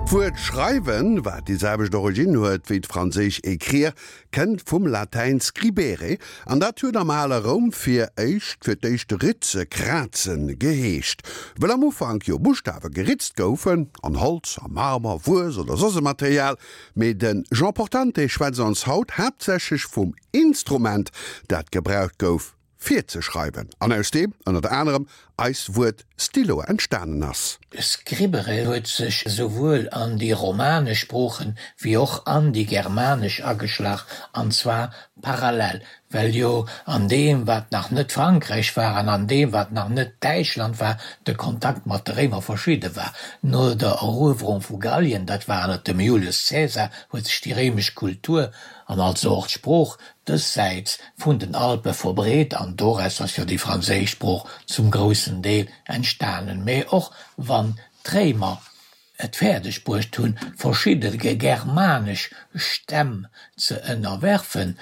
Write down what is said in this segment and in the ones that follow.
D'Wuert schreiwen, wat déi selwecht Originn huet wéi d'franséisch écrire, kënnt vum Latäin scribere an dat huet am ale Roum fir éischt fir d'éischt ritze, krazen geheescht. Wëll am Ufank jo Buschtawe geritzt goufen, an Holz, a Marmer, Wues oder soss e Material. Mee de Jean Portante schwätzt ons haut haaptsächlech vum Instrument, dat gebraucht gouf fir ze schreiwen an aus deem ënnert anerem eist Wuert Stylo entstanen ass. Scribere huet sech esouwuel an déi romanesch Sproochen wéi och an déi germanesch ageschlach, an zwar parallel, well jo an deem wat nach net Frankräich war an an deem wat nach net Däitschland war, de Kontakt mat de Réimer verschidde war. No der Eruewerung vu Gallien, dat war ënner dem Julius Caesar, huet sech déi réimesch Kultur an also och d'Sprooch dëssäits vun den Alpe verbreet an doraus ass jo déi franséisch Sprooch zum groussen Deel entstanen. Mee och wann d'Réimer et fäerdeg bruecht hunn, verschidde germanesch Stämm ze ënnerwerfen,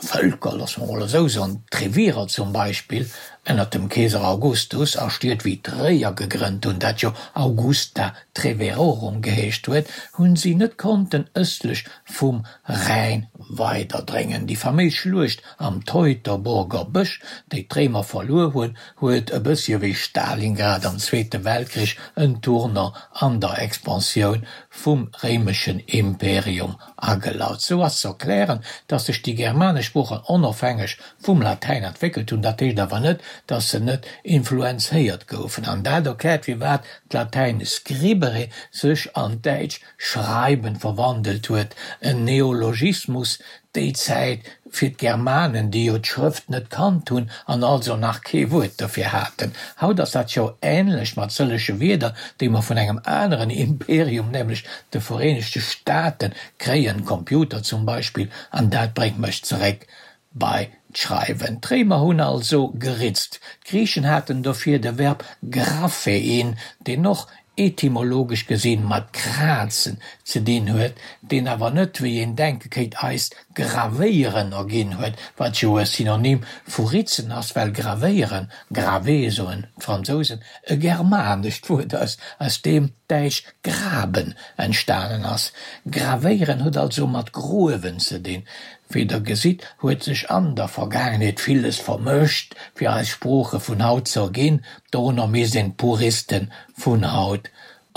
Vëlker, loosse mer mol esou soen, d'Trevirer zum Beispill, ënnert dem Keeser Augustus, a Stied wéi Tréier gegrënnt hunn, dat jo Augusta Treverorum geheescht huet, hunn si net konnten ëstlech vum Rhäin weiderdréngen. Déi faméis Schluecht am Teutoburger Bësch, déi d'Réimer verluer hunn, huet e bëssche wéi Stalingrad am Zweete Weltkrich en Tournant an der Expansioun vum réimeschen Imperium agelaut. Sou ass ze erklären, datt sech déi germanesch Sproochen onofhängeg vum Latäin entwéckelt hunn. Dat heescht awer net, datt se net influenzéiert goufen. An dat erkläert, firwat d'Latäin scribere sech an d'Däitsch Schreiben verwandelt huet, en Neologismus déi Zäit fir d'Germanen, déi jo d'Schrëft net kannt hunn an also nach kee Wuert dofir haten. Haut ass dat jo änlech mat sëllege Wierder, déi mer vun engem aneren Imperium, nämlech de Vereenegte Staaten, kréien, Computer zum Beispill, an dat bréngt mech zeréck bei d'Schreiwen. D'Réimer hunn also geritzt. D'Griichen haten dofir de Verb graphein, deen och etymologesch gesinn mat krazen ze dinn huet, deen awer net, wéi een denke kéint, eist gravéieren erginn huet, wat jo e Synonym vu ritzen ass, well gravéieren, graver soen d'Fransousen, e germanescht Wuert ass, aus deem d'däitsch graben entstanen ass. Gravéieren huet also mat gruewen ze dinn. Wéi der gesitt, huet sech an der Vergaangenheet villes vermëscht, fir eis Sprooche vun haut ze erginn. Dorunner misst een d'Puriste vun haut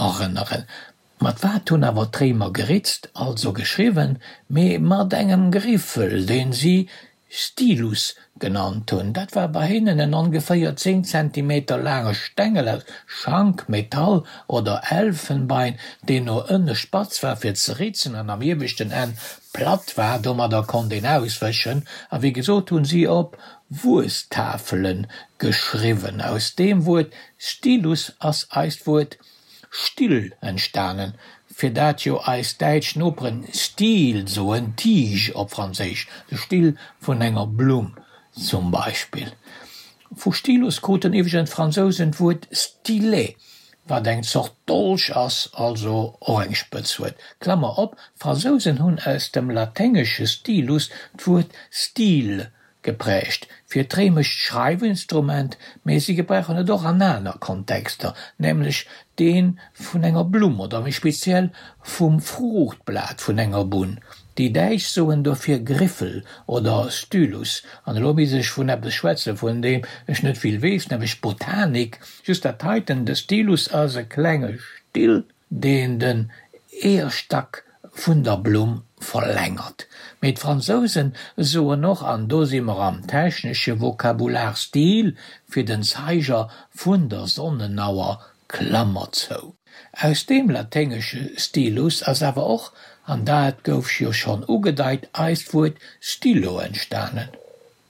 erënneren. Mat wat hunn awer d'Réimer geritzt, also geschriwwen? Mee mat engem Griffel, deen si Stylus genannt hunn. Dat war bei hinnen en ongeféier 10 Zentimeter laange Stengel aus Schank, Metall oder Elfenbein, deen no ënne spatz war fir ze ritzen an am ieweschten Enn platt war. Domadder konnt een auswëschen. A wéi gesot hunn si op Wuestafele geschriwwen. Aus deem Wuert Stylus ass eist Wuert Still entstanen, fir dat jo eis däitsch Noperen Stiel soen, Tige op Franséisch, de Still vun enger Blumm zum Beispill. Vu Stylus kruten iwwregens d'Fransousen d'Wuert Stylet, wat eng Zort Dolch ass, also och eng Spëtz huet. Klammer op, D'Fransousen hunn aus dem laténgesche Stylus d'Wuert Style Geprägt fir d'réimescht Schreiwinstrument, mee si gebrauchen et och an aner Kontexter, nämlech dee vun enger Blumm oder méi speziell vum Fruuchtblat vun enger Bunn. Déi Däitsch soen dofir Griffel oder Stylus. An elo misst ech vun eppes schwätzen, vun deem ech net vill weess, nämlech Botanik. Just dat heiten, de Stylus ass e klenge Still, deen den Eeërstack vun der Blumm verlängert. Mee d'Fransousen soen och, an do si mer am technesche Vokabular, Stil fir den Zeiger vun der Sonnenauer, Klammer zou. Aus deem laténgesche stilus ass awer och, an dat gouf jo schonn ugedeit, eist Wuert Stylo entstanen.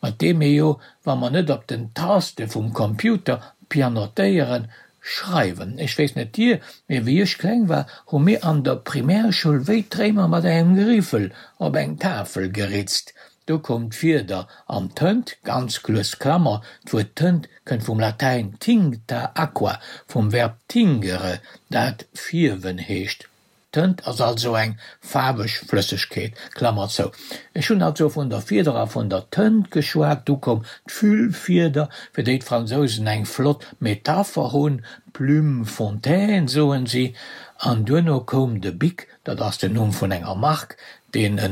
Mat deem mir jo, wa mer net op den Taste vum Computer pianotéieren, schreiwen. Ech weess net dir, mee wéi ech kleng war, hu mir an der Primärschoul wéi d'Réimer mat engem Griffel op eng Tafel geritzt. Do koum d'Fieder an d'Tënt, ganz lues, Klammer, d'Wuert Tënt kënnt vum Latäin tincta aqua, vum Verb tingere, dat fierwen heescht. Tënt ass also eng faarweg Flëssegkeet. Klammer zou. Ech hunn also vun der Fieder a vun der Tënt geschwat. Du koum d'Füllfieder, fir déi d'Fransousen eng flott Metapher hunn, Plume fontaine soen si. An duerno koum de Bic, dat ass den Numm vun enger Mark, deen e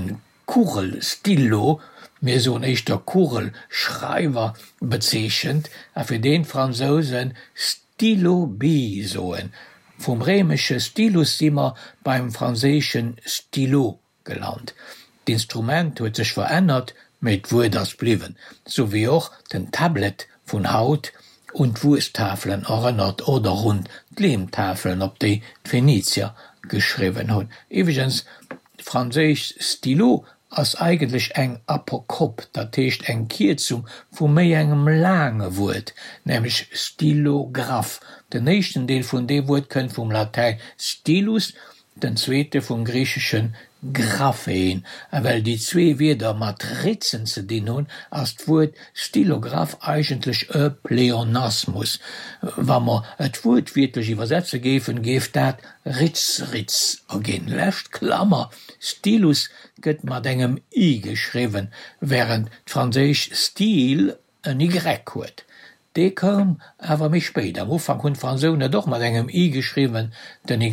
Kugelstylo, mir soen éischter Kugelschreiwer, bezeechent a fir deen d'Fransousen Stylo bille soen. Vum réimesche Stylus si mer beim franséischen Stylo gelant. D'Instrument huet sech verännert, mee d'Wuert ass bliwwen, sou wéi och den Tablet vun haut un d'Wuesttafelen erënnert oder un d'Leemtafelen, op déi d'Phenizier geschriwwen hunn. Iwwregens, d'franséisch Stylo ass eigentlech eng Apokop, dat heescht eng Kierzung vu méi engem laange Wuert, nämlech Stylographe. Den éischten Deel vun deem Wuert kënnt vum Latäin stylus, den zweete vum griichesche graphein. A well déi zwee Wierder mat Ritzen ze dinn hunn, ass d'Wuert Stylograph eigentlech e Pleonasmus. Wa mer et wuertwiertlech iwwersetze géifen, géif dat Ritz-Ritz erginn. Lescht Klammer, Stylus gëtt mat engem i geschriwwen, wärend d'franséisch style en y huet. Dee koum awer méi spéit. Am Ufank hunn d'Fransousen et och mat engem i geschriwwen. Den y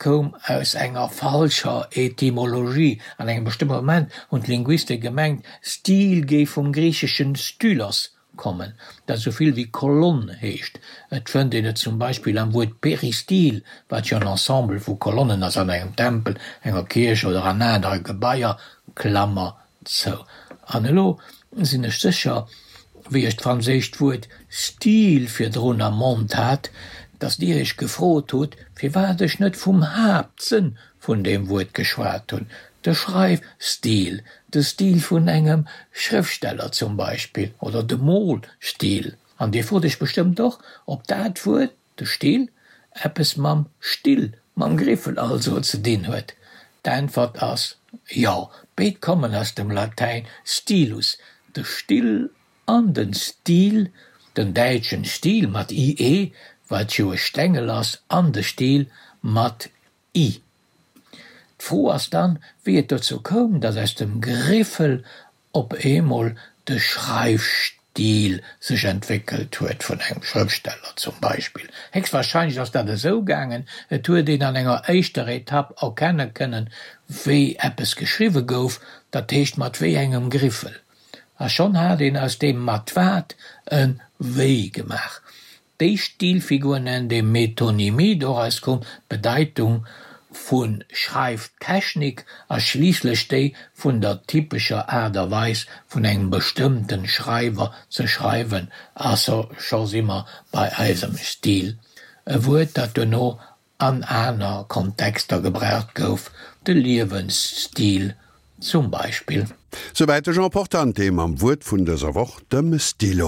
koum aus enger falscher Etymologie. An engem bestëmmte Moment hunn d'Linguiste gemengt, Stil géif vum griicheschen stylos kommen, dat esou vill wéi Kolonn heescht. Et fënnt een et zum Beispill am Wuert Peristil, wat jo en Ensemble vu Kolonnen ass an engem Tempel, enger Kierch oder an anere Gebaier, Klammer Sou, an elo sinn ech sécher, wéi ech d'franséischt Wuert Stil virdrun am Mond hat, datt Dir Iech gefrot hutt, firwat ech net vum Haaptsënn vun deem Wuert geschwat hunn, de Schreifstil, de Stil vun engem Schrëftsteller zum Beispill, oder de Molstil. An Dir frot Iech bestëmmt och, ob dat Wuert, De Still eppes mam Still, mam Griffel also, ze dinn huet? D'Äntwert ass jo, béid kommen aus dem Latäin stilus, de Still an den Stil, den däitschen Stiel mat ie, wat jo e Stengel ass, an de Stil mat i. D'Fro ass dann, wéi et dozou koum, datt aus dem Griffel op eemol de Schreifstil sech entwéckelt huet, vun engem Schrëftsteller zum Beispill. Héchstwahrscheinlech ass dat esou gaangen, et huet een an enger éischter Etapp erkenne kënnen, wéi eppes geschriwwe gouf, dat heescht mat wéi engem Griffel. A schonn hat een aus deem mat wat e wéi gemaach. Déi Stilfigur nennt ee Metonymie, doraus koum d'Bedeitung vu Schreiftechnik a schliisslech déi vun der typescher Aart a Weis vun engem bestëmmte Schreiwer ze schreiwen, a scho si mer bei eisem Stil, e Wuert, dat duerno an aner Kontexter gebraucht gouf, de Liewensstil zum Beispill. Souwäit de Jean Portante mam Wuert vun dëser Woch, dem Stylo.